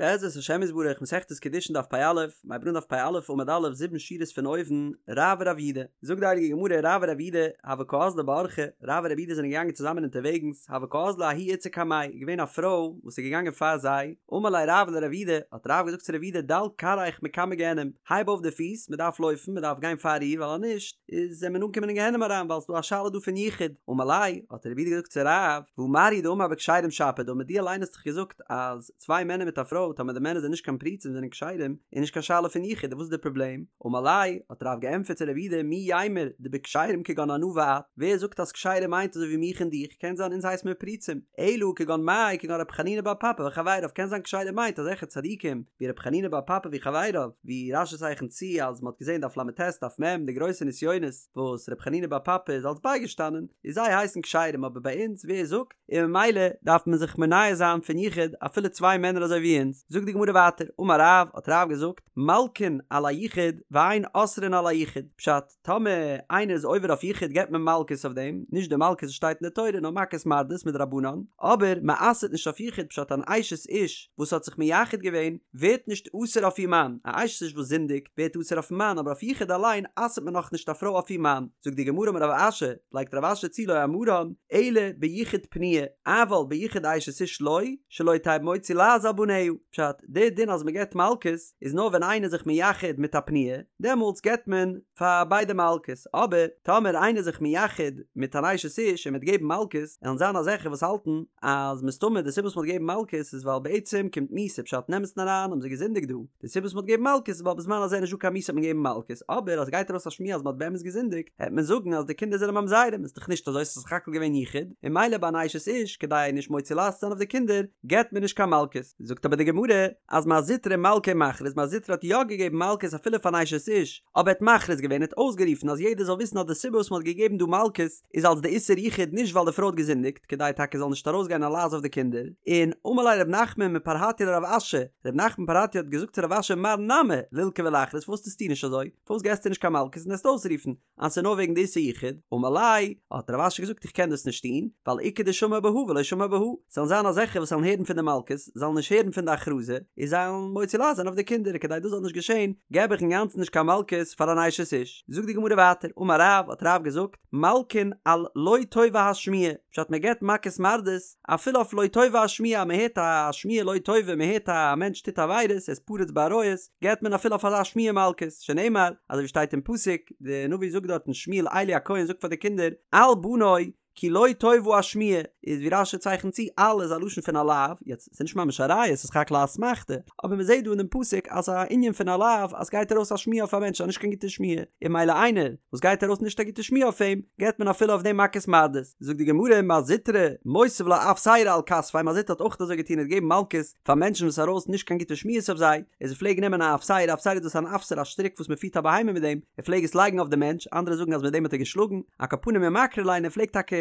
בעזרת השם יתברך מסכת קידושין דף פ"א, מ'הייבט אן דף פ"א עמוד א' זיבן שורות פון אויבן, רב ורב יודא, זאגט די הייליגע גמרא רב ורב יודא הוו קאזלי באורחא, רב און רב יודא זענען געגאנגען צוזאמען אונטערוועגנס, הוה קאזלא ההיא איתתא קמייהו, איז געווען א פרוי וואס איז געגאנגען פאר זיי, אמר ליה רב לרב יודא, האט רב געזאגט צו רב יודא דל כרעיך מקמי גיהנום, הייב אויף די פיס, מען דארף לויפן, מען דארף גיין פאר איר, ווייל אז נישט, איז וועט מען אנקומען אין גיהנום אריין, ווייל ס'איז דא א שאלה דא פון יחוד, אמר ליה, האט רב יודא געזאגט צו רב, והא מר הוא דאמר בכשרים שפיר דמי, דו אליין האסט דאך געזאגט אז צוויי מענער מיט א פרוי טאמער די מענער זענען נישט קיין פרוצים זענען כשרים איז נישט קיין שאלה פון יחוד וואס איז די פראבלעם? אמר ליה, האט רב געענטפערט צו רב יודא מי יימר דבכשרים כגון אנא ואת, ווער זאגט אז כשרים מיינט אזוי ווי מיך און דיך, קען זיין אונז הייסט מיר פרוצים, אלא כגון מאי כגון רבי חנינא בר פפא וחבריו קען זיין כשרים מיינט אזעלכע צדיקים ווי רבי חנינא בר פפא וחבריו, ווי רש"י צייכנט צו אז מ'האט געזען דף ל"ט דף מ' די גרויסע נסיונות וואס רבי חנינא בר פפא איז אלס בייגעשטאנען, איז זיי הייסן כשרים אבער ביי אונז ווער זאגט? און ממילא דארף מען זיך מונע זיין פון יחוד אפילו צוויי מענער אזוי ווי אונז, זאגט די גמרא ווייטער, אמר רב, האט רב געזאגט, מלקין על היחוד ואין אוסרין על היחוד, פשט, טאמער איינער איז עובר אויף יחוד געבט מען מלקות אויף דעם, נישט די מלקות וואס שטייט אין די תורה נאר מכות מרדות מדרבנן, אבער מען אסר'ט נישט אויף יחוד פשט אן אשת איש וואס האט זיך מייחד געווען ווערט נישט אסור אויף איר מאן, א אשת איש וואס זינדיגט ווערט אסור אויפן מאן אבער אויף יחוד אליין אסר'ט מען נאכנישט א פרוי אויף איר מאן, זאגט די גמרא אמר רב אשי, לייגט רב אשי צו לא אמרן אלא ביחוד פנויה, אבל ביחוד אשת איש לא, שלא תהא מוציא לעז על בניה, פשט, די דין אז מען געבט מלקות איז נאר ווען איינער איז זיך מייחד מיט א פנויה, דעמאלטס געבט מען פאר ביידע מלקות, אבער טאמער איינער איז זיך מייחד מיט אן אשת איש און מען וועט געבן מלקות, עלן זיין אזעלכע וואס האלטן אז מסתמא די סיבה וואס מען האט געגעבן מלקות איז ווייל בעצם קומט מיתה, פשט אין אמת'ן אריין האבן זיי געזינדיגט דא, די סיבה וואס מען האט געגעבן מלקות איז ווייל בזמן הזה איז נישטא קיין מיתה האט מען געגעבן מלקות, אבער אז גייט ארויס א שמועה אז מען האט באמת געזינדיגט, העט מען זאגן אז די קינדער זענען ממזרים, איז דאך נישט אזוי ס'איז סך הכל געווען יחוד, און ממילא ביי אן אשת איש כדי נישט מוציא לעז צו זיין אויף די קינדער געבט מען נישט קיין מלקות, זאגט אבער די גמרא אז מר זוטרא מלקי ומכריז מר זוטרא האט יא געגעבן מלקות אפילו פאר אן אשת איש, אבער ער האט מכריז געווען ער האט אויסגערופן אז יעדער זאל וויסן אז די סיבה וואס מען האט געגעבן דא מלקות איז אלס די איסור יחוד נישט ווייל די פרוי האט געזינדיגט כדי טאקע זאל נישט ארויסגיין א לעז אויף די קינדער, און אמר ליה רב נחמן מפרהטיא לרב אשי, רב נחמן מפרהטיא האט געזאגט צו רב אשי מר נמי לילקי ולכריז פארוואס טוסטו נישט אזוי? פארוואס געסטו נישט קיין מלקות און וועסט אויסרופן אז ס'איז נאר וועגן די איסור יחוד? אמר ליה, האט רב אשי געזאגט איך קען דאס נישט טון, ווייל איכא דשמעי בהא ולא שמעי בהא, ס'וועלן זיין אזעלכע וואס וועלן הערן פון די מלקות, זאלן נישט הערן פון די הכרזה, און זיי וועלן מוציא לעז זיין אויף די קינדער, כדי דאס זאל נישט געשען, געב איך אינגאנצן נישט קיין מלקות פאר אן אשת איש. זאגט די גמרא ווייטער, אמר רב, האט רב געזאגט, מלקין על לא טובה השמועה, פשט מען געבט מכות מרדות, אפילו אויף לא טובה השמועה, מען הערט א שמועה לא טובה, מען הערט א מענטש טוט עבירות, ער איז פרוץ בעריות, געבט מען אפילו אויף אזא שמועה מלקות, שנאמר, אזוי ווי שטייט אין פסוק, די נביא זאגט דארטן שמואל עלי הכהן זאגט פאר די קינדער, אל בני, כי לא טובה השמועה, איז ווי רש"י צייכנט צו, אל איז א לשון פון א לאו, יעצט, ס'איז נישט ממש א ראיה, ס'איז סך הכל א אסמכתא, אבער מען זעט דא אין דעם פסוק אז ס'איז א ענין פון א לאו, אז ס'גייט ארויס א שמועה אויף א מענטש, א נישט קיין גוטע שמועה, און ממילא איינער וואס גייט ארויס נישט א גוטע שמועה אויף אים, געבט מען אפילו אויף דעם מכות מרדות. זאגט די גמרא, מר זוטרא, מותיב לה אפסירא על כתפיה, מר זוטרא האט אויך אזוי געטון, ער האט געגעבן מלקות פאר מענטשן וואס ארויס נישט קיין גוטע שמועות אויף זיי, איז ער פלעג נעמען א אפסירא, אפסירא דאס איז אן אפסר א שטריק וואס מען פירט א בהמה מיט דעם, ער פלעג עס לייגן אויף די מענטש, אנדערע זאגן אז מיט דעם האט ער געשלאגן, על כל פנים ומקרי ליה, ער פלעגט טאקע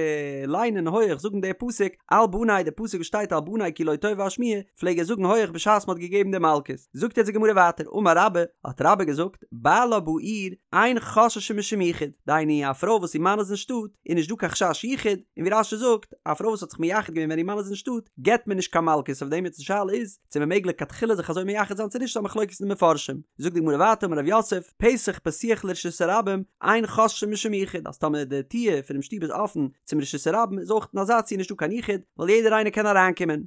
ליינען הויעך זאגן די פסוק, אל בני, די פסוק וואס שטייט אל בני כי לא טובה השמועה, פלעג ער זאגן הויעך בשעת מען האט געגעבן די מלקות. זאגט יעצט די גמרא ווייטער, אמר רבה, האט רבה געזאגט, בעלה בעיר, אין חוששין משום יחוד, דהיינו א פרוי וואס איר מאן איז אין שטאט, איז נישט דא קיין חשש יחוד, און ווי רש"י זאגט, א פרוי וואס האט זיך מייחד געווען ווען איר מאן איז אין שטאט, געבט מען נישט קיין מלקות אויף דעם, יעצט די שאלה איז, צו מען מעג לכתחילה זיך אזוי מייחד זיין צו נישט איז א מחלוקת אין די מפרשים. זאגט די גמרא ווייטער אמר רב יוסף, פתח פתוח לרשות הרבים, אין חוששין משום יחוד, אז טאמער די טיר פונעם שטוב איז אפן צום רשות הרבים איז אויך אין אזא ציור נישטא קיין יחוד, ווייל יעדער איינער קען אריינקומען.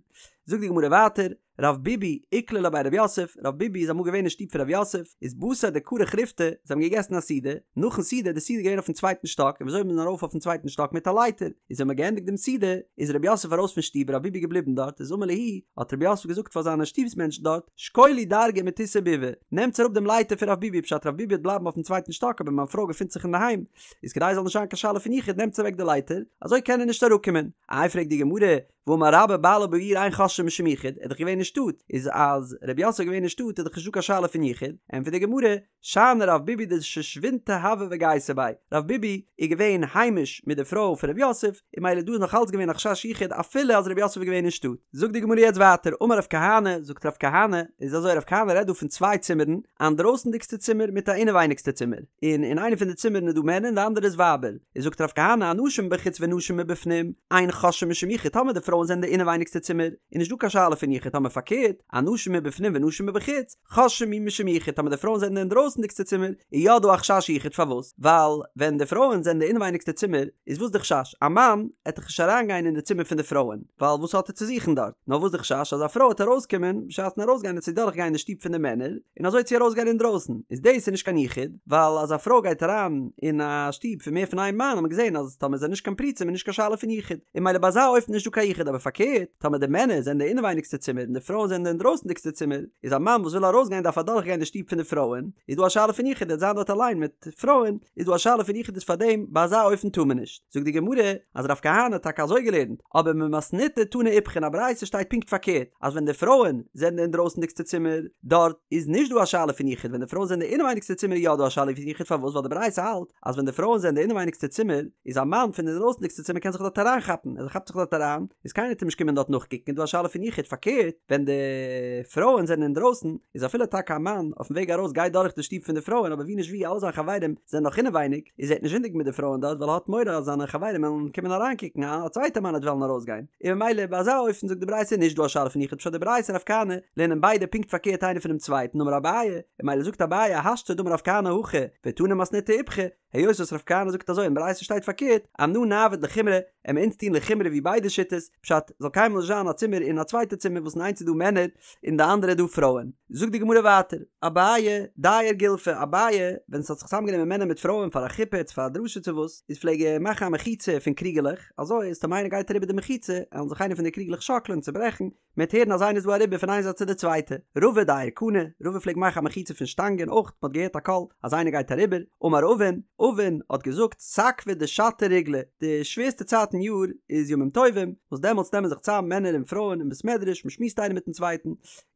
זאגט די גמרא ווייטער, רב ביבי איקלע לבי רב יוסף, רב ביבי איז אמאל געווען אין שטוב פון רב יוסף, איז בתר דכרך ריפתא, זיי האבן געגעסן א סעודה, נאכן סעודה איז די סעודה געווען אויפן צווייטן שטאק, און וויאזוי איז מען ארויף אויפן צווייטן שטאק מיט א לייטער, איז ווען מען האט געענדיגט דעם סעודה, איז רב יוסף ארויס פון שטוב רב ביבי געבליבן דארט, איז אמר להו, האט רב יוסף געזאגט פאר זיינע שטובס מענטשן דארט, שקולו דרגא מתותי ביבי, נעמטס אראפ דעם לייטער פון רב ביבי, פשט רב ביבי וועט בלייבן אויפן צווייטן שטאק אבער מיין פרוי געפינט זיך אינדערהיים, איז כדי עס זאל נישט זיין קיין שאלה פון יחוד נעמטס אוועק די לייטער, אזוי קען ער נישט אראפקומען. איי פרעגט די גמרא, והאמר רבה בעלה בעיר אין חוששין משום יחוד, ער איז דאך געווען אין שטאט, איז אז רב יוסף איז געווען אין שטאט איז דאך נישטא קיין שאלה פון יחוד, ענטפערט די גמרא, שאני רב ביבי דשושבינתיה הוה וגייסה ביה, רב ביבי איז געווען היימיש מיט די פרוי פון רב יוסף, און ממילא דא איז נאך אלץ געווען א חשש יחוד אפילו אז רב יוסף איז געווען אין שטאט. זאגט די גמרא יעצט ווייטער, אמר רב כהנא, זאגט רב כהנא, איז אזוי רב כהנא רעדט דא פון צוויי צימערן, א אינדרויסנדיגסטע צימער מיט א אינעווייניגסטע צימער, און אין איינע פון די צימערן איז דא מענער און די אנדערע איז ווייבער, איז זאגט רב כהנא אנשים מבחוץ ונשים מבפנים, אין חוששין משום יחוד, טאמער די פרוי פרויען זענען די אינעווייניגסטע צימער, איז נישט דא קיין שאלה פון יחוד, טאמער פארקערט, אנשים מבפנים ונשים מבחוץ, חוששין אי משום יחוד, טאמער די פרויען זענען די אינדרויסנדיגסטע צימער, איז יא דא א חשש יחוד, פארוואס? ווייל ווען די פרויען זענען די אינעווייניגסטע צימער, איז וואס די חשש? א מאן עט דאך נישט אריינגיין אין די צימער פון די פרויען, ווייל וואס האט ער צו זוכן דארט? נאר וואס די חשש אז א פרוי עט ארויסקומען בשעת'ן ארויסגיין עט זי דורכגיין די שטוב פון די מענער, און אזוי עט זי ארויסגיין אינדרויסן, איז דאס איז נישט קיין יחוד, ווייל אז א פרוי גייט אריין אין א שטוב פון מער פון איין מאן האט מען געזען אז טאמער זענען נישט קיין פרוצים איז נישט קיין שאלה פון יחוד, און ממילא ביי אזא אופן איז נישט דא קיין יחוד, אבער פארקערט טאמער די מענער זענען די אינעווייניגסטע צימער און די פרויען זענען די אינדרויסנדיגסטע צימער, איז א מאן וואס וויל ארויסגיין דארף אדורכגיין די שטוב פון די פרויען, איז דא א שאלה פון יחוד ער וועט זיין דארט אליין מיט פרויען, איז דא א שאלה פון יחוד איז פארדעם ביי אזא אופן טאר מען נישט. זאגט די גמרא אז רב כהנא האט טאקע אזוי געלערנט, אבער במתניתא תנא איפכא אין א ברייתא שטייט פונקט פארקערט, אז ווען די פרויען זענען די אינדרויסנדיגסטע צימער, דארט איז נישט דא א שאלה פון יחוד, ווען די פרויען זענען די אינעווייניגסטע צימער איז יא דא א שאלה פון יחוד, פארוואס? ווייל די ברייתא האלט אז ווען די פרויען זענען די אינעווייניגסטע צימער, איז א מאן פון די אינדרויסנדיגסטע צימער קען זיך דארט אריינכאפן, אז ער כאפט זיך דארט אריין, איז קיינער וועט אים נישט קומען דארט נאכקוקן, איז דא א שאלה פון יחוד, פארקערט ווען די פרויען זענען אינדרויסן, איז אפילו טאקע א מאן אויפן וועג ארויס גייט דורך די שטוב פון די פרויען אבער ווי נישט ווי אלע זיינע חברים זענען נאך אינעווייניג, איז ער וועט נישט זינדיגן מיט די פרויען דארט ווייל ער האט מורא אז זיינע חברים וועלן קומען אריינקוקן א צווייטע מאן וועט וועלן ארויסגיין, און ממילא ביי אזא אופן זאגט די ברייתא נישט דא א שאלה פון יחוד פשט די ברייתא און רב כהנא לערנען ביידע פונקט פארקערט איינער פונעם צווייטן אמר אביי, און ממילא זאגט אביי השתא דאמר רב כהנא הכי ותנא מתניתא איפכא, היות וואס רב כהנא זאגט אזוי און ברייתא שטייט פארקערט, אנא נעביד לחומרא, עמיר אונז טון לחומרא ווי ביידע שיטות, פשט, זאל קיינמאל נישט זיין א צימער און א צווייטע צימער וואס אין איינס איז דא מענער און די אנדערע איז דא פרויען. זאגט די גמרא ווייטער, אביי דייר גולפי, אביי, ווען ס'האט זיך צוזאמגענומען מענער מיט פרויען פאר א חופה צו פאר א דרשה צו וואס, איז פלעג ער מאכן א מחיצה פון קריגעלעך, אזוי אז טאמער איינער גייט אריבער די מחיצה, עלן זיך איינע פון די קריגלעך שאקלען, צוברעכן, מ'וועט הערן אז איינער איז דא אריבער פון איין זייט צו די צווייטע. רבא דייר קני, רבא פלעגט מאכן א מחיצה פון שטאנגען אויך, מ'האט געהערט א קול אז איינער גייט אריבער. אמר אבין, אבין האט געזאגט, סקבא דשתא ריגלא, די שווערסטע צייט אין יאר איז ימים טובים, וואס דעמאלטס נעמען זיך צאם מענער און פרויען אין בית מדרש, מ'שמועסט איינער מיטן צווייטן,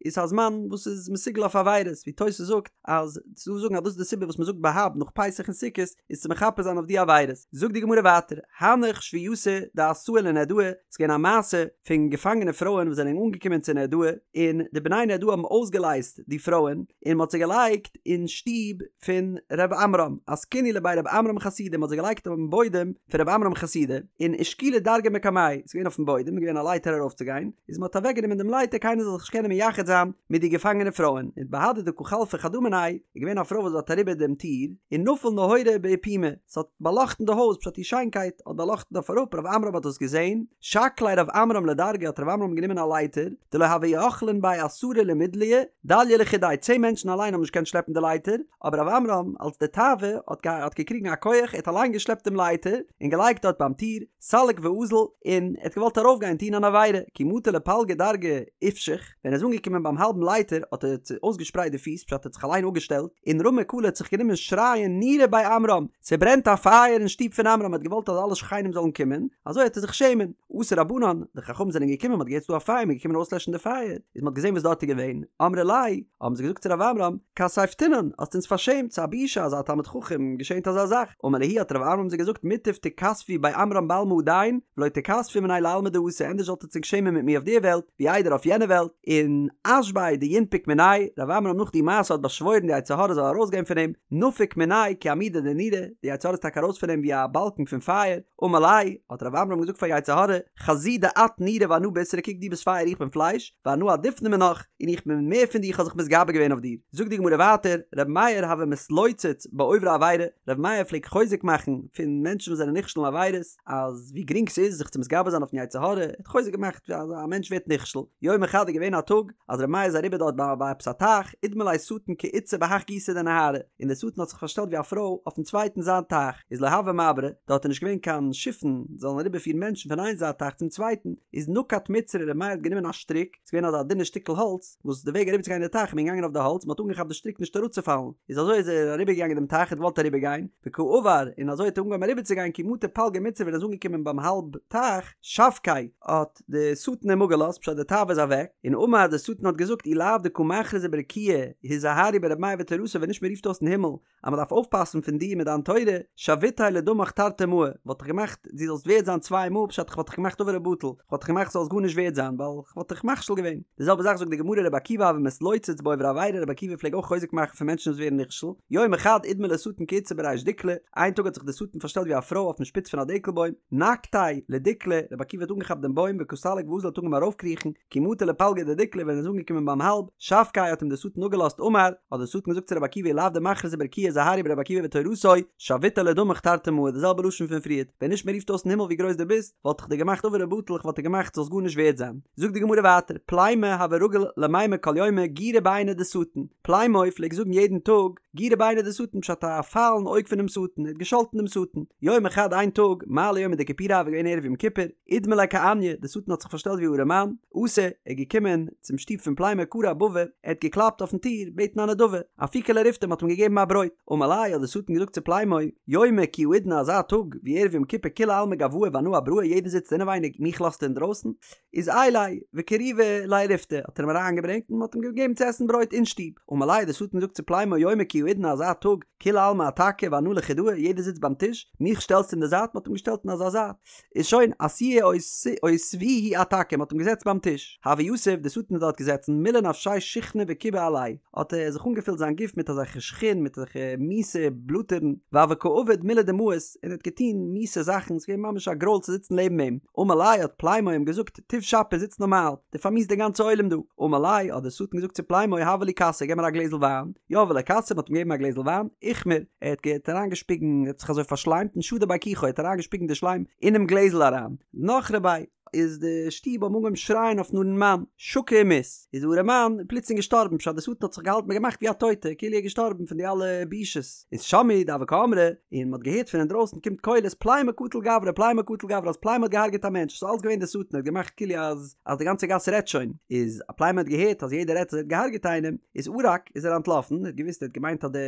איז א זמן וואס איז מסוגל אויף עבירות, ווי תוס' זאגט אז ס'דא זאגן אז דאס איז די סיבה וואס מ'זאגט בה"ב נאך פסח און סוכות, איז צו מכפר זיין אויף די עבירות. זאגט די גמרא ווייטער, הנך שבוייתא דאתאי לנהרדעא, ס'איז געווען א מעשה פון געפאנגענע פרויען וואס זענען אנגעקומען צו נהרדעא, און די בני נהרדעא האבן אויסגעלייזט די פרויען, און מ'האט זיי געלייגט אין שטוב פון ר' עמרם, אסקינהו לבי ר' עמרם חסידא, מ'האט זיי געלייגט אויפן בוידעם פון ר' עמרם חסידא, און אשקולו דרגא מקמייהו, ס'איז געווען אויפן בוידעם, איז געווען א לייטער ארויפצוגיין, איז מ'האט אוועקגענומען דעם לייטער קיינער זאל זיך נישט קענען מייחד זיין מיט די געפאנגענע פרויען, און בהדי דקא חלפה חדא מינייהו, איז געווען א פרוי וואס האט אריבער דעם טיר, און נפל נהורא באפומא, ס'האט באלאכטן די הויז, פשט איר שיינקייט האט באלאכטן אויף אראפ, ר' עמרם האט דאס געזען, שקליה ר' עמרם לדרגא האט ר' עמרם גענומען א לייטער, דלא הוו יכלין ביה עשרה למידליה, דלייא לחודיה, צען מענטשן אליין האבן נישט געקענט שלעפן די לייטער, אבער ר' עמרם אלס די תאווה האט האט געקריגן א כח, ער האט אליין געשלעפט דעם לייטער, און געלייגט דארט ביים טיר, סליק ואזיל, און ער האט געוואלט ארויפגיין טון אן עבירה, כי מטא לפלגא דרגא איפשח, ווען ער איז אנגעקומען ביים האלבן לייטער האט ער אויסגעשפרייט די פיס, פשט ער האט זיך אליין אפגעשטעלט, און רמא קלא האט זיך גענומען שרייען נורא בי עמרם, ס'ברענט א פייער אין שטוב פון עמרם, ער האט געוואלט אז אלע שכנים זאלן קומען, אזוי העט ער זיך שעמען. אתו רבנן, די חכמים זענען געקומען, מ'האט געהערט ס'דא א פייער, מ'איז געקומען אויסלעשן די פייער, איז מ'האט געזען וואס דארט איז געווען, אמרי ליה, האבן זיי געזאגט צו רב עמרם, כספתינן, האסט אונז פארשעמט, ס'איז א בושה אז א תלמיד חכם געשענט אזא זאך, אמר להו האט רב עמרם זיי געזאגט מוטב תיכספו בי עמרם בעלמא הדין, ולא תיכספו מינאי לעלמא דאתי, ענדערש זאלט עטץ ענק שעמען מיט מיר אויף די וועלט, ווי איידער אויף יענע וועלט, און אשבעיה דינפק מיניה, רב עמרם נאך די מעשה האט באשוואוירן די יצר הרע זאל ארויסגיין פון אים, נפק מיניה כי עמודא דנורא, די יצר הרע איז טאקע ארויס פון אים ווי א באלקן פון פייער, אמר ליה, האט רב עמרם געזאגט פאר יצר הרע, חזי דאת נורא ואנא בישרא קוק דו ביסט פייער איך בין פלייש, ואנא עדיפנא מינך, און איך בין מער פון דיר איך האב זיך מתגבר געווען אויף דיר. זאגט די גמרא ווייטער, רבי מאיר הוה מתלוצץ בעוברי עבירה, רבי מאיר פלעגט חוזק מאכן פון מענטשן וואס זענען נכשל אין עבירות, אז ווי גרינג ס'איז זיך צו מתגבר זיין אויפן יצר הרע, ער האט חוזק געמאכט אז א מענטש ווערט נכשל, יומא חד איז געווען א טאג אז רבי מאיר איז אריבער דארט ביי ביי עפעס א טייך, אידמי ליה שטן כאיתתא בהך גיסא דנהרא, און דער שטן האט זיך פארשטעלט ווי א פרוי אויפן צווייטן זייט טייך, איז לא הוה מעברי, דארט איז נישט געווען קיין שיפן זאלן אריבערפירן מענטשן פון איין זייט טייך צום צווייטן, איז נקט מצרא רבי מאיר האט גענומען א שטריק, ס'איז געווען אזא דינע שטיקל האלץ, וואס די וועג אריבערצוגיין די טייך איז מען געגאנגען אויף די האלץ, מען האט אנגעכאפט די שטריק נישט אראפצופאלן, איז אזוי איז ער אריבערגעגאנגען דעם טייך, ער האט געוואלט אריבערגיין, וקא עבר, און אזוי האט ער אנגעהויבן אריבערצוגיין כי מטא פלגא מצרא ווען ער איז אנגעקומען ביים האלב טייך, שבקיה, האט די שטן אים אפגעלאזט, פשט די תאווה איז אוועק, און אמר די שטן האט געזאגט אי לאו דקא מכרזי ברקיעא, הזהרו ברבי מאיר ותורתו ווען נישט מען רופט אויס אין הימל אז מען דארף אויפפאסן פון דיר מיט דיין תורה, שויתיה לדמך תרתי מאי, וואלט איך געמאכט דו זאלסט ווערד זיין צוויי מאל, פשט איך וואלט דיך געמאכט עובר ובטל, איך וואלט דיך געמאכט זאלסט גארנישט ווערד זיין, ווייל איך וואלט דיך מכשיל געווען. די זעלבע זאך זאגט די גמרא רבי עקיבא הוה מתלוצץ בעוברי עבירה, רבי עקיבא פלעג אויך חוזק מאכן פון מענטשן וואס ווערן נכשל, יומא חד אידמי ליה שטן כאיתתא בריש בריש דיקלא, איין טאג האט זיך דער שטן פארשטעלט ווי א פרוי אויפן שפיץ פון א דקל בוים, נקטיה לדיקלא, רבי עקיבא האט אנגעכאפט דעם בוים וקא סליק ואזיל האט אנגעהויבן ארויפקריכן, כי מטא לפלגא דדיקלא ווען ער איז אנגעקומען ביים האלב, שבקיה האט אים דער שטן אפגעלאזט אמר, האט דער שטן געזאגט צו רבי עקיבא אי לאו דמכרזי ברקיעא הזהרו ברבי עקיבא ותורתו, שויתיה לדמך תרתי מעי, די זעלבע לשון פון פריערט, ווען נישט מען רופט אויס אין הימל ווי גרויס דו ביסט, וואלט איך דיר געמאכט עובר ובטל, איך וואלט דיר געמאכט זאלסט גארנישט ווערד זיין. זאגט די גמרא ווייטער, פלימו הוה רגיל למימר כל יומא גירא בעיניה דשטן, פלימו פלעגט זאגן יעדן טאג, גירא בעיניה דשטן פשט א פייל אין אויג פונעם שטן, ער האט געשאלטן דעם שטן. יומא חד איין טאג, מעלי יומא דכיפורי הוה געווען ערב יום כיפור, אידמי ליה כעניא, דער שטן האט זיך פארשטעלט ווי א ארעמאן, אתא, ער איז געקומען צום שטוב פון פלימו קרע אבבא, ער האט געקלאפט אויפן טיר, בעטן א נדבה, אפיקו ליה ריפתא, מען האט אים געגעבן א ברויט. אמר ליה האט דער שטן געזאגט צו פלימו, יומא כי האידנא אזא טאג ווי ערב יום כיפור כולי עלמא גואי ואנא אבראי יעדער זיצט אינעווייניג מיך לאזטו אינדרויסן? איז עייליה וקריבה ליה ריפתא האט ער אים אריינגעברענגט און מען האט אים געגעבן צו עסן ברויט אין שטוב. אמר ליה האט דער שטן געזאגט צו פלימו יומא כי האידנא אזא טאג כולי עלמא אתכא ואנא לחודאי יעדער זיצט ביים טיש מיך שטעלסטו אין די זייט מען האט אים געשטעלט אין אזא זייט איז שוין אתיוהו אותבוהו אתכא, מ'האט אים געזעצט ביים טיש. הוה יתיב, די שטן איז דארט געזעצן, מלא נפשיה שיחנא וכיבא עליה, האט ער זיך אנגעפילט זיין גוף מיט אזעלכע שחין, מיט אזעלכע מיסע בלאטערן, והוה קא עביד מילי דמאיס, און ער האט געטון מיסע זאכן, ס'איז געווען ממש א גרויל צו זיצן לעבן אים. אמר ליה האט פלימו אים געזאגט, תיב שפיר זיץ נארמאל, דו פארמיסט די גאנצע עולם דא. אמר ליה האט דער שטן געזאגט צו פלימו הבה לי כסא, געב מיר א גלעזל וויין. יהבו ליה כסא, מ'האט אים געגעבן א גלעזל וויין, איכמר, ער האט געהאט אריינגעשפיגן, ער האט זיך אזוי פארשליימט און שדי ביה כיחו, ער האט אריינגעשפיגן די שליים אינעם גלעזל אריין. נחרו ביה, איז די שטוב האבן אנגעהויבן שרייען אויפן ארעמאן, שקי ומית, איז די ארעמאן פלוצלינג געשטארבן, פשט די שטן האט זיך געהאלטן געמאכט ווי א טויטע, כאילו ער איז געשטארבן פון די אלע בושות. איז שמעו דהוו קאמרי, און מ'האט געהערט פון אינדרויסן קומט קולות פלימו קטל גברא, פלימו קטל גברא, אז פלימו האט געהארגעט א מענטש, ס'איז אלץ געווען די שטן, ער האט געמאכט כאילו אז אז די גאנצע גאס רעדט שוין, איז אז פלימו האט געהערט אז יעדער רעדט אז ער האט געהארגעט איינעם, איז ערק, איז ער אנטלאפן, ער האט געוואוסט ער האט געמיינט אז די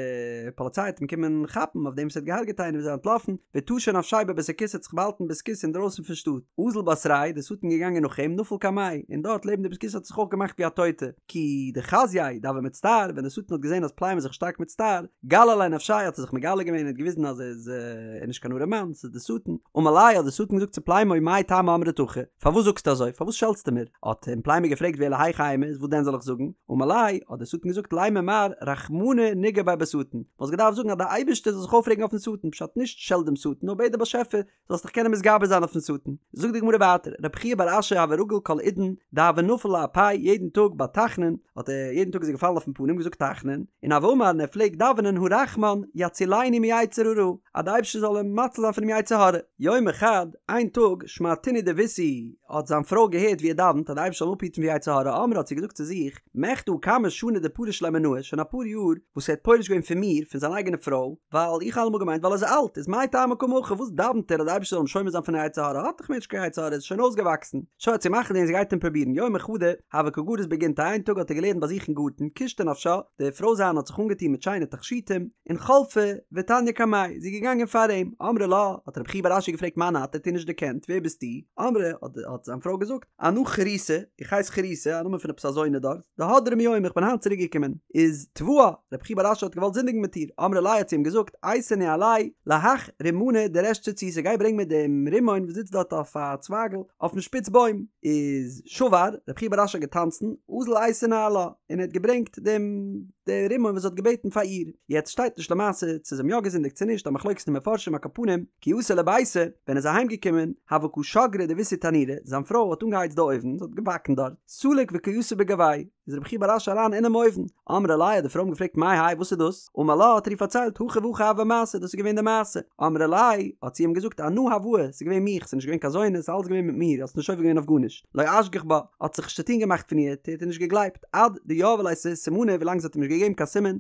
פאליציי וועט אים קומען כאפן אויף דעם וואס ער האט געהארגעט איינעם איז ער אנטלאפן, וטשא נפשיה בבית הכסא האט זיך באהאלטן בית הכסא אינדרויסן פון שטאט, אזל בתריה, די שטן געגאנגען נאך אים, נפל קמיה, און דארט לעבן די בית הכסא האט ער זיך אויך געמאכט ווי א טויטע, כי דחזייה דהוה מצטער, ווען די שטן האט געזען אז פלימו איז זיך שטארק מצטער, גלי ליה נפשיה האט ער זיך מגלה געווען און האט געוויזן אז ער איז נישט קיין ארעמאן, ס'איז די שטן, אמר ליה האט די שטן געזאגט צו פלימו מאי טעמא אמרת הכי, פארוואס זאגסטו אזוי? פארוואס שעלטסטו מיר? האט אים פלימו געפרעגט ואלא היכי אימא, איז וואס דען זאל איך זאגן? אמר ליה, האט דער שטן געזאגט לימא מר רחמנא נגער ביה בשטן, וואלסט געדארפט זאגן אז דער אייבערשטער זאל זיך אויפרעגן אויפן שטן, פשט נישט שעלט דעם שטן, נאר בעט דער באשעפער זאלסט דיך קענען מתגבר זיין אויפן שטן. זאגט די גמרא ווייטער, רב חייא בר אשי הוה רגיל כל עידן דהוה נפיל לאפיה, יעדן טאג ביי תחנון האט ער, יעדן טאג איז ער געפאלן אויפן פנים געזאגט תחנון, און הוה אמר און ער פלעגט דאווענען הרחמן יצילני מיצר הרע, אז דער אייבערשטער זאל אים מציל זיין פונעם יצר הרע. יומא חד, איין טאג, שמעתינהו דביתהו, האט זיין פרוי געהערט ווי ער דאווענט אז דער אייבערשטער זאל אים אפהיטן פון יצר הרע, אמרה האט זי געזאגט צו זיך, מכדי הא כמה שני דפריש ליה מינאי, שוין אפאר יאר וואס ער האט פורש געווען פון מיר, פון זיין אייגענע פרוי, ווייל איך האב אלעמאל געמיינט ווייל ער איז אלט, איז מאי טעמא קאמר הכי, וואס דאווענט ער אז דער אייבערשטער זאל אים שומר זיין פון יצר הרע, האט דאך מער נישט קיין יצר הרע, ער איז שוין אויסגעוואקסן. שוין האט זי מחליט געווען זי גייט אים פרובירן, יומא חדא, הוה קא גריס בגינתיה, איין טאג האט ער געלערנט ביי זיך אין גארטן, קשטה נפשה, די פרוי זיינע האט זיך אנגעטון מיט שיינע תכשיטים, און חלפה ותניא קמיה, זי איז געגאנגען פאר אים, אמרה לה, האט רב חייא בר אשי געפרעגט מאן את, ער האט איר נישט דערקענט, ווער ביסטו? אמרה, האט זיין פרוי געזאגט, אנא חריתא, איך הייס חריתא, א נאמען פון עפעס א זונה דארט, דהדרא מיומא, איך בין היינט צוריק געקומען, איז תבעה, רב חייא בר אשי האט געוואלט זינדיגן מיט איר, אמרה ליה האט זי אים געזאגט, אייתי ניהליה להך רימנא דריש ציציתא, גיי ברענג מיר דעם רימון וואס זיצט דארט אויף א צווייגל אויפן שפיץ בוים, איז שבר, רב חייא בר אשי האט געטאנצן, אזל אייתי ניהלה, און ער האט געברענגט דעם די רימון וואס זי האט געבעטן פאר איר, יעצט שטייט נישט למעשה צו זיי האבן יא געזינדיגט צו נישט, א מחלוקת אין מפרשים על כל פנים, כי אתא לביתיה, ווען ער איז אהיים געקומען, הוה קא שגרא דביתהו תנורא, זיין פרוי האט אנגעהייצט די אויוון, זי האט געבאקן דארט, סליק וקא יתיב בגוויה, איז רבי חייא בר אשי אריין אינעם אויוון, אמרה ליה האט די פרוי אים געפרעגט מאי האי וואס איז דאס, אמר לה האט ער איר פארציילט הכי והכי הוה מעשה דאס איז געווען די מעשה, אמרה ליה האט זי אים געזאגט אנא הואי, ס'איז געווען מיך, ס'איז נישט געווען קיין זונה, ס'איז אלעס געווען מיט מיר, האסט נישט עובר געווען אויף גארנישט, לא אשגח בה, האט זיך נישט צוטון געמאכט פון איר, האט איר נישט געגלייבט, עד דיהבה ליה סימנא ווילאנג זי האט אים נישט געגעבן קיין סימן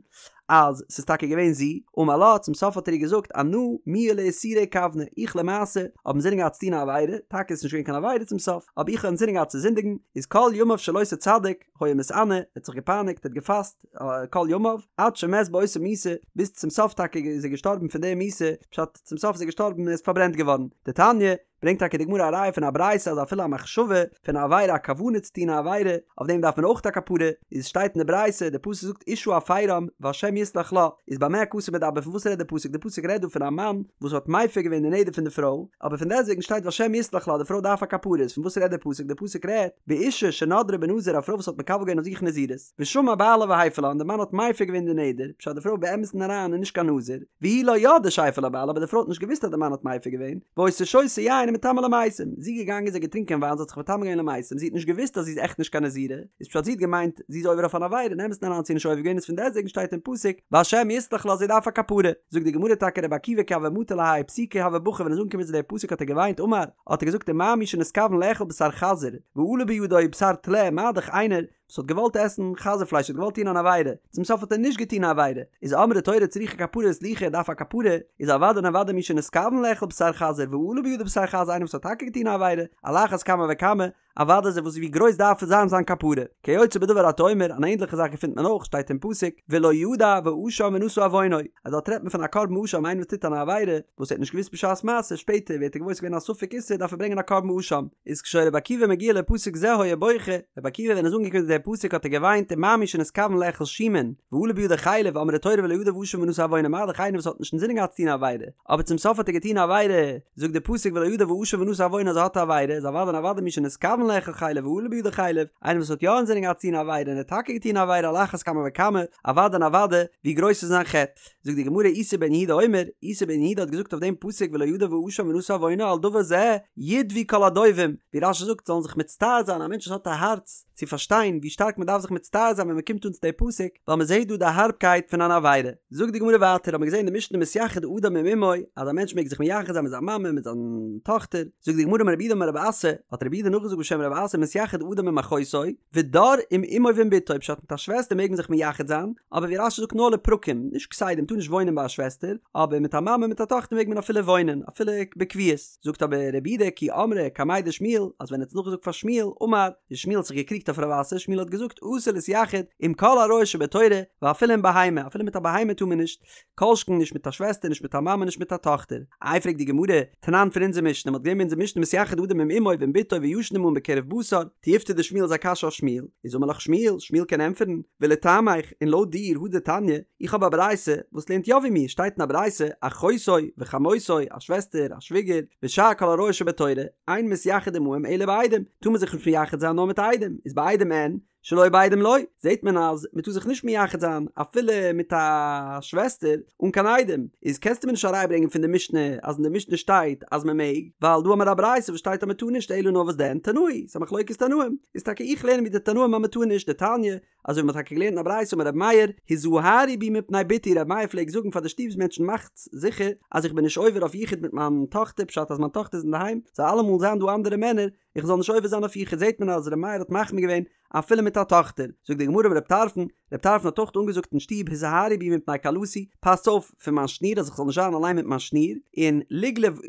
אז ס'איז טאקע געווען זי, אמר לה, צום סוף האט ער איר געזאגט אנא מיהא לאיסורא איכוונא, איך למעשה האב אינזינען געהאט צו טון א עבירה, טאקע איז נישט געווען קיין עבירה צום סוף, אבער איך האב אינזינען געהאט צו זינדיגן, איז כל ימיו של אותו צדיק היה מתענה, ער האט זיך געפייניגט, ער האט געפאסט כל ימיו, עד שמת באותה מיתה, ביז צום סוף טאקע איז ער געשטארבן פון די מיתה, פשט, צום סוף איז ער געשטארבן און ער איז פארברענט געווארן. דתניא, ברענגט טאקע די גמרא א ראיה פון א ברייתא אז אפילו א מחשבה פון א עבירה א כוונה צו טון א עבירה, אויף דעם דארף מען אויך א כפרה, איז שטייט אין די ברייתא, די פסוק זאגט אשה הפרם וה' יסלח לה, איז במה הכתוב מדבר פון וואס רעדט די פסוק, די פסוק רעדט דא פון א מאן וואס האט מפר געווען די נדר פון די פרוי, אבער פון דעסטוועגן שטייט והשם יסלח לה, די פרוי דארף א כפרה, איז פון וואס רעדט די פסוק, די פסוק רעדט באשה שנדרה בנזיר א פרוי וואס האט מקבל געווען אויף זיך נזירות, ושמע בעלה והפר לה און די מאן האט מפר געווען די נדר, פשט די פרוי באמת'ן אריין איז נישט קיין נזיר, והיא לא ידעה שהפר לה בעלה אבער די פרוי האט נישט געוואוסט אז די מאן האט מפר געווען, והיתה שותה יין ומטמאה למתים, זי איז געגאנגען זי האט געטרינקען וויין זי האט זיך מטמא געווען למתים, זי האט נישט געוואוסט אז זי איז עכט נישט קיין נזירה, איז פשט זי האט געמיינט זי איז עובר אויף אן עבירה אין אמת'ן אריין האט זי נישט עובר געווען איז פון דעסטוועגן שטייט אין פסוק והשם יסלח לה זי דארף א כפרה, זאגט די גמרא טאקע רבי עקיבא כי הוה מטי להאי פסוקא הוה בכי ווען ער איז אנגעקומען צו די פסוק האט ער געוויינט אמר האט ער געזאגט ומה מי שנתכוון לאכול בשר חזיר ועלה בידו בשר טלה מה דאך איינער וואס האט געוואלט עסן חזיר פלייש האט געוואלט טון אן עבירה, צום סוף האט ער נישט געטון א עבירה, איז אמרה תורה צריכה כפרה וסליחה דארף א כפרה, איז אוודאי און אוודאי מי שנתכוון לאכול בשר חזיר ועלה בידו בשר חזיר איינער וואס האט טאקע געטון א עבירה, על אחת כמה וכמה, אוודאי איז וואס ווי גרויס דארף זיין זיין כפרה. כיוצא בדבר אתה אומר, אן ענדליכע זאך געפינט מען אויך, שטייט אין פסוק, ולא ידע ואשם ונשא עוונו, אז דארט רעדט מען פון א קרבן אשם איינער וואס טוט אן עבירה וואס ער האט נישט געוואוסט בשעת מעשה, שפעטער ווערט ער געוואויר ס'איז געווען א ספק איסור דארף ער ברענגען א קרבן אשם. איז כשהיה רבי עקיבא מגיע לפסוק זה היה בוכה, רבי עקיבא ווען ער איז אנגעקומען צו דער פסוק האט ער געוויינט ומה מי שנתכוון לאכול שומין, ועלה בידו חלב אמרה תורה ולא ידע ואשם ונשא עוונו מה דאך איינער וואס האט נישט אינזינען געהאט צו טון א עבירה, אבער צום סוף האט ער געטון א עבירה, זאגט דער פסוק ולא ידע ואשם ונשא עוונו אז ער האט א עבירה, איז אוודאי און אוודאי מי שנתכוון לאכול חלב ועלה בידו חלב, איינער וואס האט יא אינזינען געהאט צו טון א עבירה און ער האט טאקע געטון א עבירה על אחת כמה וכמה, אוודאי און אוודאי ווי גרויס איז זיין חטא. זאגט די גמרא איסי בן יהודה אומר, איסי בן יהודה האט געזאגט אויף דעם פסוק ולא ידע ואשם ונשא עוונו על דבר זה ידוו כל הדווים, ווי רש"י זאגט זאלן זיך מצטער זיין א מענטש וואס האט א הארץ צו פארשטיין ווי שטארק מען דארף זיך מצטער זיין ווען מען קומט אן צו די פסוק, ווייל מען זעט דא די הארבקייט פון אן עבירה. זאגט די גמרא ווייטער האט מען געזען אין די משנה מתייחד אדם עם אמו אז א מענטש מעג זיך מייחד זיין מיט זיין מאמע מיט זיין טאכטער, זאגט די גמרא אמר רב יהודה אמר רב אסי, האט רב יהודה נאכגעזאגט בשם רב אסי מתייחד אדם עם אחותו, ודר עם אמו ועם בתו, פשט מיט א שוועסטער מעג מען זיך מייחד זיין, אבער ווי רש"י זאגט נאר לפרקים, נישט כסדר, מ'טאר נישט וואוינען ביי א שוועסטער, אבער מיט א מאמע מיט א טאכטער מעג מען אפילו וואוינען, אפילו בקביעות. זאגט אבער רב יהודה כי אמרה קמיה דשמואל, אז ווען ער האט עס נאכגעזאגט פאר שמואל, אמר, איז שמואל האט זיך געקריגט אויף רב אסי, שמואל האט געזאגט אסור להתייחד עם כל עריות שבתורה, ואפילו עם בהמה, אפילו מיט א בהמה טאר מען נישט, כל שכן נישט מיט א שוועסטער, נישט מיט א מאמע, נישט מיט א טאכטער. איי פרעגט די גמרא, תנן פון אונזער משנה, מ'האט געזען אין אונזער משנה מתייחד אדם עם אמו ועם בתו וישן עמהן בקירוב בשר, תיובתא דשמואל איז א קשיא אויף שמואל, איז אמר לך שמואל, שמואל קען ענטפערן, ולטעמיך, און לויט דיר, הא דתניא, איך האב א ברייתא וואס לערנט יא ווי מיר, שטייט אין א ברייתא, אחותו וחמותו, א שוועסטער, א שוויגער, ושאר כל עריות שבתורה, אין מתייחד עמהם אלא בעדים, טאר מען זיך נישט מייחד זיין נאר מיט עדים, איז בעדים אין, שלא בעדים לא, זעט מען אז מען טאר זיך נישט מייחד זיין אפילו מיט א שוועסטער אן קיין עדים, איז קענסטו מיר נישט א ראיה ברענגען פון די משנה אז אין די משנה שטייט אז מען מעג, ווייל דא האמיר א ברייתא וואס שטייט אז מען טאר נישט אלא נאר וואס דען תנאי, ס'איז א מחלוקת תנאים, איז טאקע איך לערן ווי די תנאים אז מען טאר נישט, דתניא, אזוי ווי מען האט טאקע געלערנט אין א ברייתא אמר רבי מאיר, הזהרו בי מפני בתי, רבי מאיר פלעגט זאגן פאר די שטוב'ס מענטשן מאכטס זיכער אז איך בין נישט עובר אויף יחוד מיט מיין טאכטער פשט אז מיין טאכטער איז אינדערהיים זאל אלעמאל זיין דא אנדערע מענער איך זאל נישט עובר זיין אויף יחוד זעט מען אז ר' מאיר האט מחמיר געווען אפילו מיט א טאכטער, זאגט די גמרא אמר רב טרפון, רב טרפון האט אויך אנגעזאגט אין שטוב הזהרו בי מפני כלתי, פאסטס אויף פון מיין שניר אז איך זאל נישט זיין אליין מיט מיין שניר, און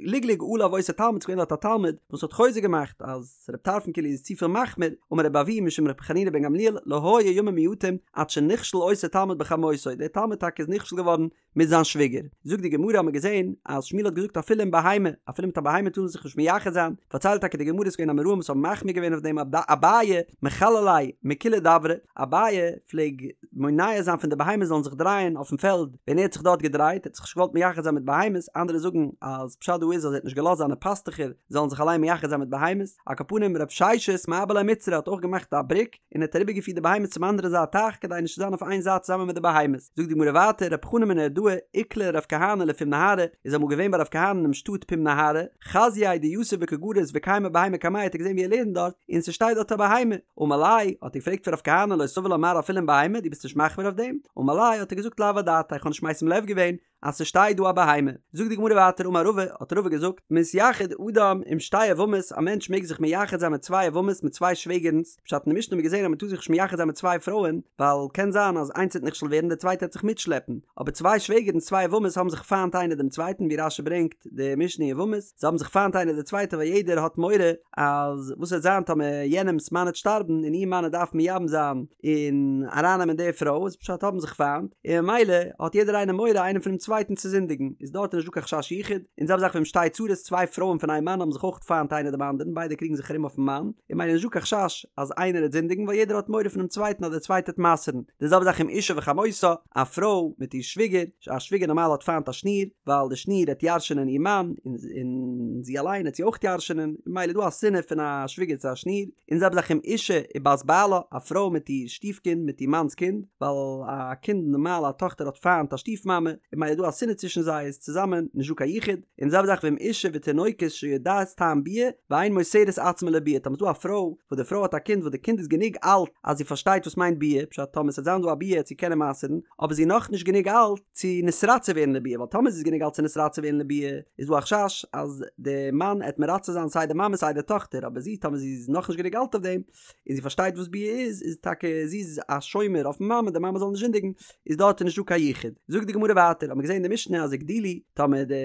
לגלג עליו אותו תלמיד ס'געווען דארט א תלמיד וואס האט חוזק געמאכט אז רב טרפון כאילו איז צופיל מחמיר, אמר רבי אבהו משום רבי חנינא בן גמליאל לא היו ימים מועטים עד שנכשל אותו תלמיד בחמותו, דער תלמיד טאקע איז נכשל געווארן מיט זיין שוויגער. זאגט די גמרא האט מען געזען אז שמואל האט געזאגט אפילו עם בהמה, אפילו מיט א בהמה טאר מען זיך נישט מייחד זיין, פארציילט טאקע די גמרא ס'איז געווען אמוראים וואס האבן מחמיר געווען אויף דעם אביי מכלל ליה מכולי דברי, אביי פלעג מונע זיין פון די בהמות זאלן זיך דרייען אויפן פעלד ווען ער האט זיך דארט געדרייט, ער האט זיך נישט געוואלט מייחד זיין מיט בהמות, אנדערע זאגן אז פשט דא איז אז ער האט נישט געלאזט זיינע פאסטוכער זאלן זיך אליין מייחד זיין מיט בהמות, על כל פנים רב ששת מעבר ליה מצרא האט אויך געמאכט א בריק, און האט אריבערגעפירט די בהמות צום אנדערע זייט טייך כדי נישט צו זיין אויף איין זייט צוזאמען מיט די בהמות. זאגט די גמרא ווייטער, רב חנא מנהרדעא איקלע לרב כהנא לפום נהרא, איז אמאל געווען ביי רב כהנא אינעם שטאט פום נהרא, חזייה דיתיב וקא גריס וקיימא בהמה קמיה האט ער געזען ווי ער לערנט דארט, און ס'שטייט דארט א בהמה. אמר ליה, האט ער געפרעגט פון רב כהנא לא סבר לה מר אפילו עם בהמה, דו ביסט נישט מחמיר אויף דעם? אמר ליה, האט ער געזאגט לאו אדעתאי, איך האב נישט משים לב געווען, אז ס'שטייט דא א בהמה. זאגט די גמרא ווייטער אמר רבא, האט רבא געזאגט, מתייחד אדם עם שתי יבמות, א מענטש מעג זיך מייחד זיין מיט צוויי יבמות, מיט צוויי שוועגערנס, פשט אין די משנה האט מען געזען אז מ'טאר זיך נישט מייחד זיין מיט צוויי פרויען, ווייל קען זיין אז איינס וועט נכשל ווערן די צווייטע וועט זיך מיטשלעפן, אבער צוויי שוועגערנס צוויי יבמות האבן זיך פיינט איינער דעם צווייטן ווי רש"י ברענגט די משנה אין יבמות, זיי האבן זיך פיינט איינער די צווייטע ווייל יעדער האט מורא אז וואס וועט זיין טאמער יענעמס מאן וועט שטארבן און איר מאן וועט דארפן מייבם זיין און ארייננעמען די פרוי איז פשט האבן זיך פיינט און ממילא האט יעדער איינער מורא איינער פונעם צווייטן. צווייטן צו זינדיגן, איז דארט איז נישט דא קיין חשש יחוד, און זעלבע זאך ואם שתי צרות, צוויי פרויען פון איין מאן האבן זיך אויך פיינט איינער דעם אנדערן, ביידע קריגן זיך ארום אויפן מאן, און ממילא איז נישט דא קיין חשש אז איינער העט זינדיגן ווייל יעדער האט מורא פונעם צווייטן אז דער צווייטער העט מסר'ן, די זעלבע זאך אם אשה וחמותה, א פרוי מיט איר שוויגער, א שוויגער נארמאל האט פיינט א שניר, ווייל די שניר העט ירש'ענען איר מאן, און זי אליין העט זי אויך ירש'ענען, ממילא איז דא א שנאה פון א שוויגער צו א שניר, און זעלבע זאך אם אשה ובת בעלה, א פרוי מיט איר שטיף קינד מיט איר מאנ'ס קינד, ווייל א קינד נארמאל א טאכטער האט פיינט א שטיף מאמע, און ממילא איז דא א שנאה צווישן זיי איז צוזאמען נישט דא קיין יחוד, און זעלבע זאך ואם אשה ותינוקת שיודעת טעם ביאה ואין מוסרת עצמה לביאה, טאמער איז דא א פרוי וואס די פרוי האט א קינד וואס די קינד איז גענוג אלט אז זי פארשטייט וואס מיינט ביאה, פשט טאמער ס'וועט זיין דא א ביאה וועט זי קענען מסר'ן, אבער זי איז נאכנישט גענוג אלט צו נתרצה ווערן לביאה, ווייל טאמער זי איז גענוג אלט צו נתרצה ווערן לביאה איז דא א חשש אז די מאן עט מרצה זיין סיי די מאמע סיי די טאכטער, אבער זי טאמער זי איז נאכנישט גענוג אלט אויף דעם, און זי פארשטייט וואס ביאה איז, איז טאקע זי איז א שומר אויפן מאמע די מאמע זאל נישט זינדיגן, איז דארט נישט דא קיין יחוד. זאגט די גמרא ווייטער, האט מען געזען אין די משנה אז הגדילו, טאמער די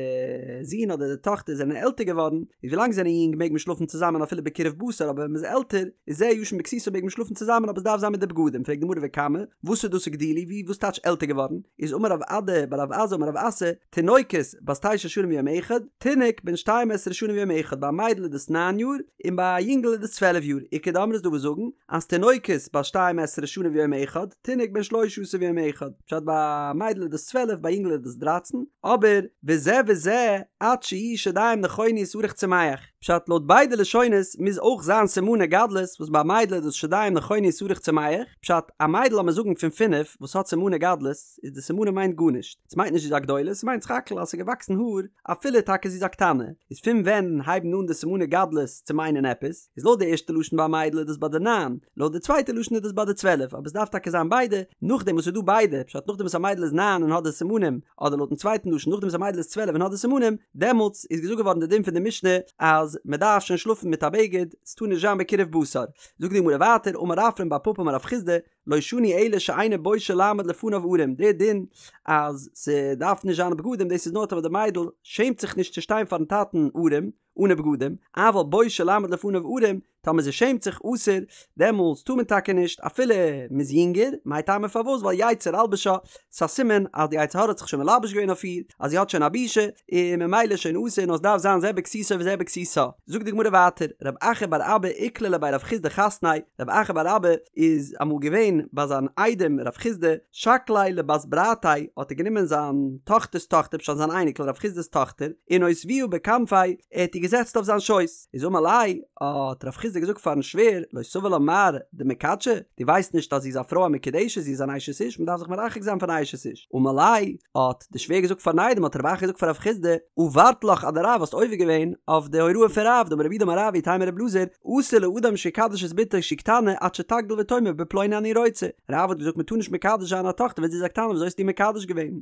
זון אדער די טאכטער זענען עלטער געווארן, איז ווילאנג זיי זענען יונג מעג מען שלאפן צוזאמען אפילו בקירוב בשר, אבער ווען מען איז עלטער, איז זה ישן בכסותו מעג מען שלאפן צוזאמען אבער עס דארף זיין מיט די בגדים, פרעגט די גמרא וכמה, וואס איז דאס הגדילו, ווי וואס טייטש עלטער געווארן, איז אמר רב אדא בר רב עזא אמר רב אסי, תינוקת בת תשע שנים ויום אחד, תינוק בן שתים עשרה שנה ויום אחד, ביי א מיידל איז דאס ניין יאר, און ביי א יונגל איז דאס צוועלף יאר, איכא דאמרי איז דא וואס זאגן אז תינוקת בת שתים עשרה שנה ויום אחד, תינוק בן שלשה עשר ויום אחד, פשט ביי א מיידל איז דאס צוועלף ביי א יונגל איז דאס דרייצן, אבער וזה וזה עד שיהיו שדים נכונו ושערך צומח, פשט לויט ביידע לשונות מוז אויך זיין סימני גדלות וואס ביי א מיידל איז דאס שדים נכונו ושערך צומח, פשט א מיידל לאמיר זאגן פון פינף וואס האט סימני גדלות, איז די סימנים מיינט גארנישט, ס'מיינט נישט זי איז א גדולה, ס'מיינט סך הכל אז ס'איז געוואקסן האר, אפילו טאקע זי איז א קטנה, איז פון ווען הייבן אן די סימני גדלות צו מיינען עפעס, איז לויט די ערשטע לשון ביי א מיידל איז דאס ביי די ניין, לויט די צווייטע לשון איז דאס ביי די צוועלף, אבער ס'דארף טאקע זיין ביידע, נאכדעם וואס ס'איז דא ביידע, פשט נאכדעם וואס א מיידל איז ניין און האט די סימנים, אדער לויטן צווייטן לשון נאכדעם וואס א מיידל איז צוועלף און האט די סימנים, דעמאלטס איז געזאגט געווארן די דין פון די משנה אז מ'דארף שוין שלאפן מיט א בגד, ס'טאר נישט זיין בקירוב בשר. זאגט די גמרא ווייטער, אמר רפרם בר פפא אמר רב חסדא, לא שנו אלא שאינה בושה לעמוד לפניו ערום, די דין אז ס'דארף נישט זיין בגדים דאס איז נאר טאמער די מיידל שעמט זיך נישט צו שטיין פארן טאטן ערום, אנע בגדים, אבל בושה לעמוד לפניו ערום, טאמער זי שעמט זיך אסור, דעמאלטס טאר מען טאקע נישט אפילו מ'איז יונגער, מאי טעמא פארוואס ווייל יצר אלבשה, ס'איז א סימן אז די יצר הרע האט זיך שוין מלבש געווען אויף איר, אז זי האט שוין א בושה, און ממילא איז שוין אסור נאר עס דארף זיין זה בכסותו וזה בכסותה. זאגט די גמרא ווייטער, רב אחא בר אבא איקלע לבי רב חסדא חתניה, רב אחא בר אבא איז אמאל געווען ביי זיין איידעם רב חסדא, שקליה לבת ברתיה, האט ער גענומען זיין טאכטער'ס טאכטער, פשט זיין אייניקל רב חסדא'ס טאכטער, און אותבוה בכנפיה, ער האט איר געזעצט אויף זיין שויס. איז אמר ליה, האט רב חסדא געזאגט פארן שווער, לא סבר לה מר דמיקדשא, דו ווייסט נישט אז זי איז א פרוי א מקודשת, זי איז אן אשת איש, מען דארף זיך מרחק זיין פון א אשת איש. אמר ליה, האט די שווער געזאגט פארן איידעם, האט רב אחא געזאגט פאר רב חסדא, עברת לך אדרב, האסט עובר געווען אויף די הוראה פון רב, דאמר רב יהודה אמר רב ואיתימא רב אלעזר, אסור לאדם שיקדש את בתו שהיא קטנה עד שתגדיל ותאמר בפלוני אני רוצה. רב האט געזאגט מען טאר נישט מקדש זיין א טאכטער ווען זי איז א קטנה, וויאזוי האסטו מקדש געווען?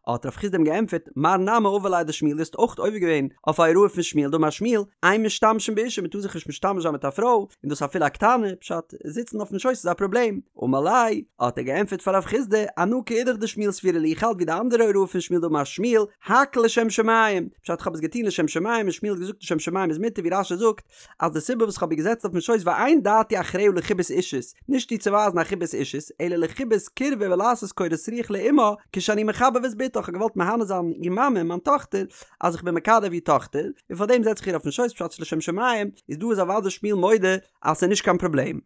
האט רב חסדא אים געענטפערט, מר נמי עבר ליה אדשמואל, דו האסט אויך עובר געווען אויף א הוראה פון שמואל, דאמר שמואל, אין משתמשים באשה, מען טאר זיך נישט משתמש זיין מיט א פרוי, און דאס אפילו א קטנה, פשט, זיצן אויפן שויס איז א פראבלעם. אמר ליה, האט ער געענטפערט פאר רב חסדא, אנא כאידך דשמואל סבירא לי, איך האלט ווי די אנדערע הוראה פון שמואל דאמר שמואל, הכל לשם שמים, פשט איך האב עס געטון לשם שמים און שמואל האט געזאגט לשם שמים איז מותר ווי רש"י זאגט, אז די סיבה וואס כ'האב איר געזעצט אויפן שויס ואין דעתי אחריה לחיבת אישות, נישט איר צו ווייזן א חיבת אישות, אלא לחיבת קירבה ולעשות קורת רוח לאמה, כשאני מחבב את בתה, כ'האב געוואלט מהנה זיין איר מאמע, מיין טאכטער, אז איך בין מקרב איר טאכטער, און פארדעם זעץ איך איר אויפן שויס פשט לשם שמים, איז דא איז אוודאי שמואל מודה אז ס'איז נישט קיין פראבלעם.